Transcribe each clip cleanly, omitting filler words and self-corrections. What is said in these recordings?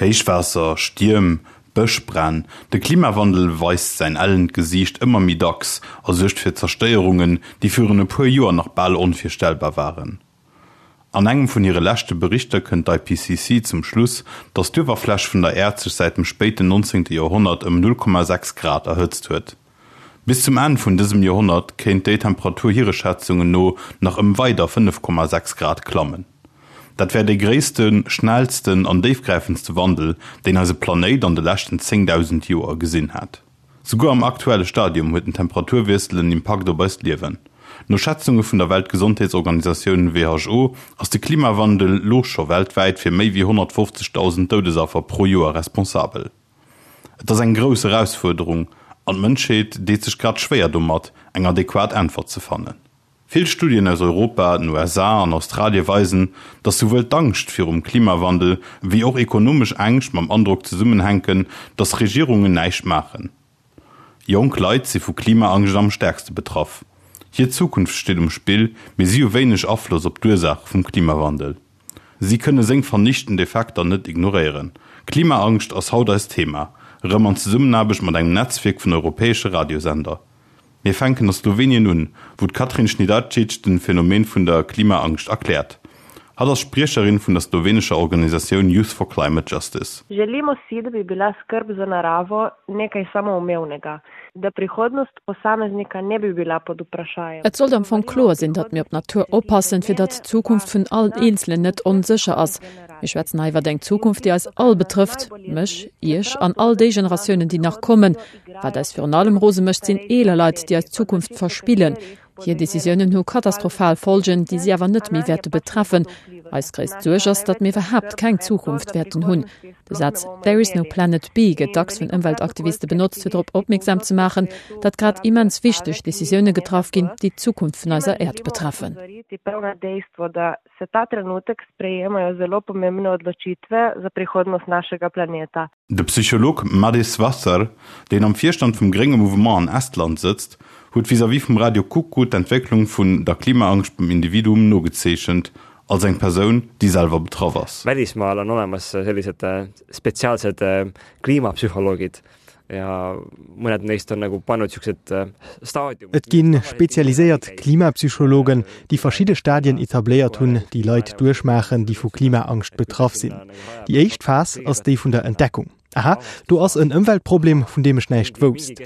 Héichwaasser, Stierm, Bëschbränn, de Klimawandel weist säin ellent Gesiicht ëmmer méi dacks a suergt fir Zerstéierungen, déi virun e puer Joer nach bal onvirstellbar waren. An engem vun hire leschte Berichter kënnt d'IPCC zum Schluss, datt d'Uewerfläch vun der Äerd sech säit dem spéiten 19. Joerhonnert ëm 0,6 Grad erhëtzt huet. Bis zum Enn vun dësem Joerhonnert kéint déi Temperatur hire Schätzungen no nach ëm weider 5,6 Grad klammen. Dat wär dee gréissten, schnellsten an déifgräifendste Wandel, deen eise Planéit an de leschten 10.000 Joer gesinn hätt. Souguer am aktuelle Stadium huet den Temperaturwiessel en Impakt op eist Liewen. No Schätzunge vun der Weltgesondheetsorganisatioun WHO ass de Klimawandel lo scho weltwäit fir méi wéi 150.000 Doudesaffer pro Joer responsabel. Et ass eng grouss Erausfuerderung an d'Mënschheet deet sech grad schwéier domat, eng adequat Äntwert ze fannen. Vill Studien aus Europa, den USA an Australie weisen, datt souwuel d'Angscht virum Klimawandel wéi och ekonomesch Ängscht mam Androck zesummenhänken, datt Regierungen näischt maachen. Jonk Leit si vu Klimaangscht am stäerkste betraff. Hir Zukunft steet um Spill, mee si hu wéineg Afloss op d'Ursaache vum Klimawandel. Si kënne seng vernichtend Effekter net ignoréieren. Klimaangscht ass haut eist Thema, erëm an Zesummenaarbecht mat engem Netzwierk vun europäesche Radiosender. Mir fänken a Slowenien un, wou d'Katrin Žnidarčič den Phänomen vun der Klimaangscht erkläert. Hatt ass Spriecherin vun der slowenescher Organisatioun Youth for Climate Justice. Želimo si, da bi bila skrb za naravo nekaj samoumevnega, da prihodnost posameznika ne bi bila pod vprašajem. Et sollt am Fong kloer sinn, datt mir op d'Natur oppassen, fir datt d'Zukunft vun allen Eenzelen net onsécher ass. Mir schwätzen hei iwwer eng Zukunft, déi eis all betrëfft, mech, iech an all déi Generatiounen, déi nach kommen. Wat eis virun allem rose mécht, sinn eeler Leit, déi eis Zukunft verspillen. Hir Decisiounen hu katastrophal Folgen, déi si awer net méi wäerte betreffen. Eis gréisst Suerg ass, datt mir iwwerhaapt keng Zukunft wäerten hunn. De Saz There is no planet B gëtt dacks vun Ëmweltaktiviste benotzt, fir drop opmierksam ze maachen, datt grad immens wichteg Decisioune getraff ginn, déi d'Zukunft vun eiser Äerd betreffen. Se ta trenutek sprejemajo zelo pomembne odločitve za prihodnost našega planeta. De Psycholog Madis Vasser, deen am Virstand vum grénge Mouvement an Estland sëtzt, huet vis-à-vis vum Radio Kuku d'Entwécklung vun der Klimaangscht beim Individuum nogezeechent, als eng Persoun, déi selwer betraff ass. Välismaal on olemas sellised spetsiaalsed kliimapsühholoogid ja mõned neist on nagu pannud siuksed staadiumid. Et gi spezialiséiert Klimapsychologen, déi verschidde Stadien etabléiert hunn, déi Leit duerchmaachen, déi vu Klimaangscht betraff sinn. Déi éischt Phas ass déi vun der Entdeckung. Aha, do ass en Ëmweltproblem, vun deem ech näischt wousst.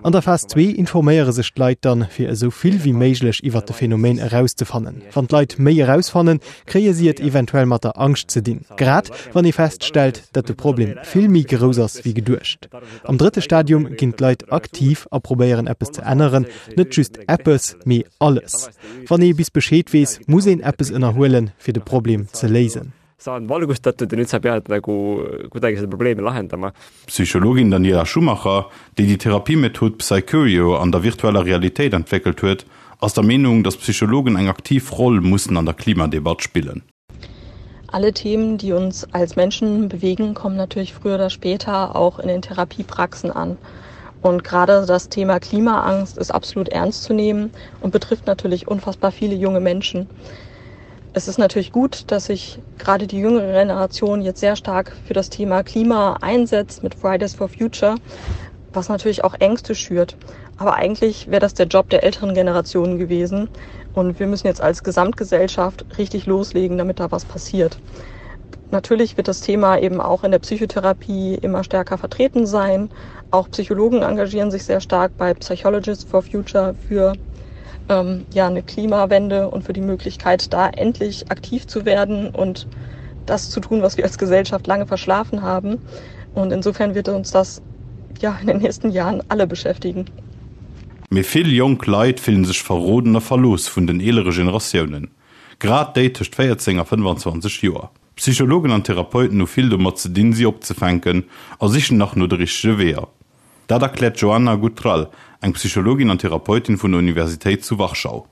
An der Phas zwee informéiere sech d'Leit dann, fir esou vill wéi méiglech iwwer de Phänomen erauszefannen. Wann d'Leit méi erausfannen, kréie si et eventuell mat der Angscht ze dinn, grad wann ee feststellt, datt de Problem vill méi grouss ass wéi geduecht. Am drëtte Stadium ginn d'Leit aktiv a probéieren eppes ze änneren, net just eppes, mee alles. Wann ee bis Bescheed weess, muss een eppes ënnerhuelen, fir de Problem ze léisen. Sa on valgustatud ja nüüd sa pead nagu kuidagi seda probleemi lahendama. D'Psychologin Daniela Schumacher, déi déi Therapiemethod Psycurio an der virtueller Realitéit entwéckelt huet, ass der Meenung, datt Psychologen eng aktiv Roll mussen an der Klimadebatt spillen. Alle Themen, die uns als Menschen bewegen, kommen natürlich früher oder später auch in den Therapiepraxen an. Und gerade das Thema Klimaangst ist absolut ernst zu nehmen und betrifft natürlich unfassbar viele junge Menschen. Es ist natürlich gut, dass sich gerade die jüngere Generation jetzt sehr stark für das Thema Klima einsetzt mit Fridays for Future, was natürlich auch Ängste schürt. Aber eigentlich wäre das der Job der älteren Generationen gewesen. Und wir müssen jetzt als Gesamtgesellschaft richtig loslegen, damit da was passiert. Natürlich wird das Thema eben auch in der Psychotherapie immer stärker vertreten sein. Auch Psychologen engagieren sich sehr stark bei Psychologists for Future für ähm, ja, eine Klimawende und für die Möglichkeit, da endlich aktiv zu werden und das zu tun, was wir als Gesellschaft lange verschlafen haben. Und insofern wird uns das ja in den nächsten Jahren alle beschäftigen. Mee vill jonk Leit fillen sech verroden a verlooss vun den eelere Generatiounen, grad déi tëscht 14 a 25 Joer. Psychologen an Therapeuten hu vill domat ze dinn, si opzefänken a sichen nach no de richtege Weeër. Dat erkläert d'Joanna Gutral, eng Psychologin an Therapeutin vun der Universitéit zu Warschau.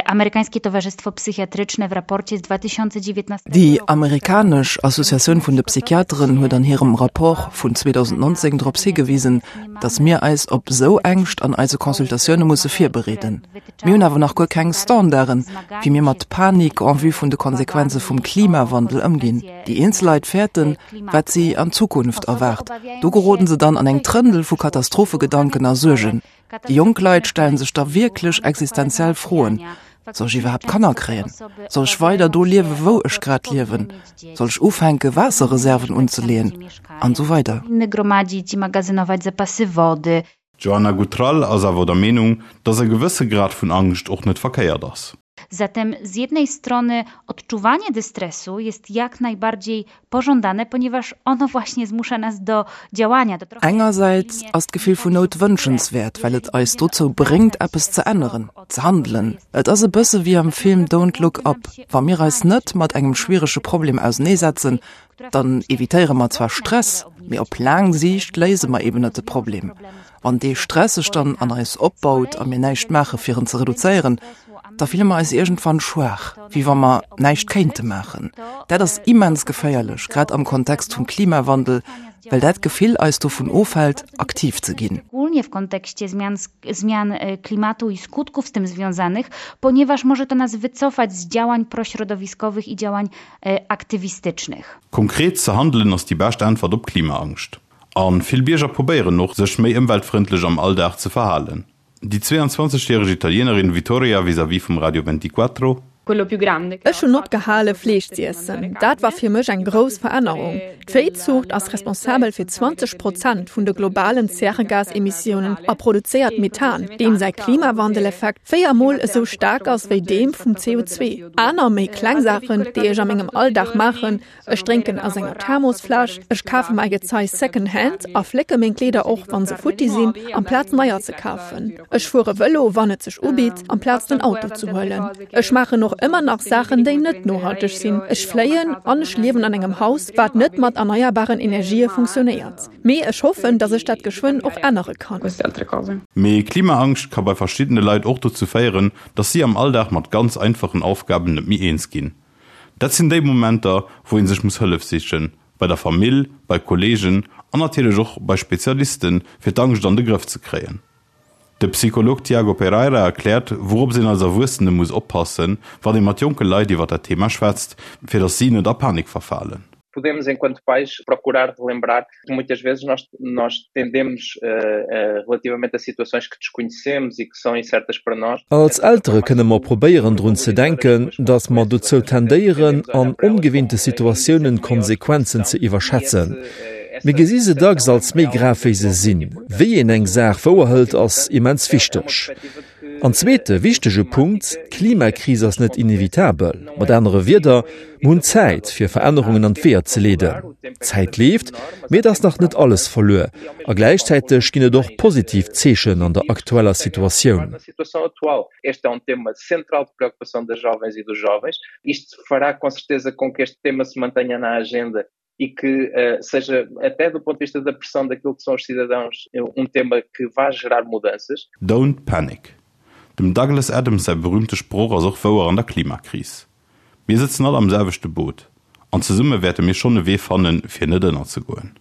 Amerykańskie Towarzystwo Psychiatryczne w raporcie z 2019 Déi amerikanesch Associatioun vun de Psychiateren huet an hirem Rapport vun 2019 drops higewisen, datt mir eis op esou Ängscht an eise Consultatioune musse virbereeden. Mir hunn awer nach guer keng Standarden, wéi mir mat Panik en vue vun de Konsequenze vum Klimawandel ëmginn. Déi eenzel Leit fäerten, wat si an Zukunft erwaart. Do geroden se dann an eng Trëndel vu Katastrophegedanken a Suergen. Déi jonk Leit stellen sech da wierklech existenziell Froen, Soll ech iwwerhaapt Kanner kréien? Soll ech weider do liewen, wou ech grad liewen? Soll ech ufänke Waasserreserven unzeleeën? An esou weider. D'Joanna Gutral ass awer der Meenung, datt e gewësse Grad vun Angscht och net verkéiert ass. Zatem z jednej strony odczuwanie dystresu jest jak najbardziej pożądane, ponieważ ono właśnie zmusza nas do działania, do trochę Engersäits ass d'Gefill vun Nout wënschenswäert, well et eis dozou bréngt, eppes ze änneren, ze handelen. Et ass e bësse wéi am Film Don't Look Up, Wa mir eis net mat engem schwierege Problem auseneesetzen, dann evitéiere mer zwar Stress, mee op laang Siicht léise mer eben net de Problem. Wann dee Stress sech dann an eis opbaut a mir näischt maache fir en ze reduzéieren, da fille mer eis iergendwann schwaach, wéi wa mer näischt kéinte maachen. Dat ass immens geféierlech, grad am Kontext vum Klimawandel, well dat Gefill eis dovun ofhält, aktiv ze ginn. Szczególnie w kontekście zmian zmian klimatu i skutków z tym związanych, ponieważ może to nas wycofać z działań prośrodowiskowych i działań aktywistycznych. Konkret ze handelen ass déi bescht Äntwert op Klimaangscht. A vill Bierger probéieren och, sech méi ëmweltfrëndlech am Alldag ze verhalen. Déi 22 järeg Italienerin Vittoria vis-à-vis vum Radio Ventiquattro. Ech hunn opgehale Fleesch z'iessen. Dat war fir mech eng grouss Verännerung. D'Véizuucht ass responsabel fir 20 Prozent vun de globalen Zäregasemissiounen a produzéiert Methan, deem säi Klimawandeleffekt 4 Mol esou staark ass wéi deem vum CO2. Aner méi kleng Saachen, déi ech a mengem Alldag maachen, Ech drénken aus enger Thermosfläsch, ech kafe mäi Gezei second hand a flécke meng Kleeder och wann se futti sinn, amplaz neier ze kafen. Ech fuere Vëlo wann et sech ubitt, amplaz den Auto ze huelen. Ech maachen och ëmmer nach Saachen déi net nohalteg sinn, ech fléien an ech liewen an engem Haus wat net mat erneierbaren Energië funktionéiert. Mee ech hoffen, dass ech dat geschwënn och ännere kann. Mee Klimaangscht ka bei verschiddene Leit och dozou féieren, dass si am Alldag mat ganz einfachen Aufgaben net méi eens ginn. Dat sinn déi Momenter, wou ee sech muss Hëllef sichen, bei der Famill, bei Kolleegen an natierlech och bei Spezialisten, fir d'Angscht an de Grëff ze kréien. De Psycholog Tiago Pereira erkläert, wourops een als Erwuessene muss oppassen, wann ee mat jonke Leit iwwer dat Thema schwätzt, fir datt si net a Panik verfalen. Podemos, enquanto pais, procurar relembrar que muitas vezes nós, nós tendemos uh, uh, relativamente a situações que desconhecemos e que são incertas para nós. Als Eltere kënne mer probéieren drun ze denken, datt mer dozou tendéieren, an ongewinnte Situatiounen d'Konsequenzen ze iwwerschätzen. Mir gesi se dacks als méi grav wéi se sinn. Wéi een eng Saach wouerhëlt ass immens wichteg. An zweete wichtege Punkt, D'Klimakris ass net inevitabel. Mat anere Wierder, mer hunn Zäit, fir Verännerungen an d'Weeër ze leeden. D'Zäit leeft, mee et ass nach net alles verluer. A gläichzäiteg ginn et och positiv Zeechen an der aktueller Situatioun. E que uh, seja, até do ponto de vista da pressão daquilo que são os cidadãos, um tema que vá gerar mudanças. Don't panic. Dem Douglas Adams säi berüümte Sproch ass och wouer an der Klimakris. Mir sëtzen all am selwechte Boot, an zesumme wäerte mir schonn e Wee fannen, fir net ënnerzegoen.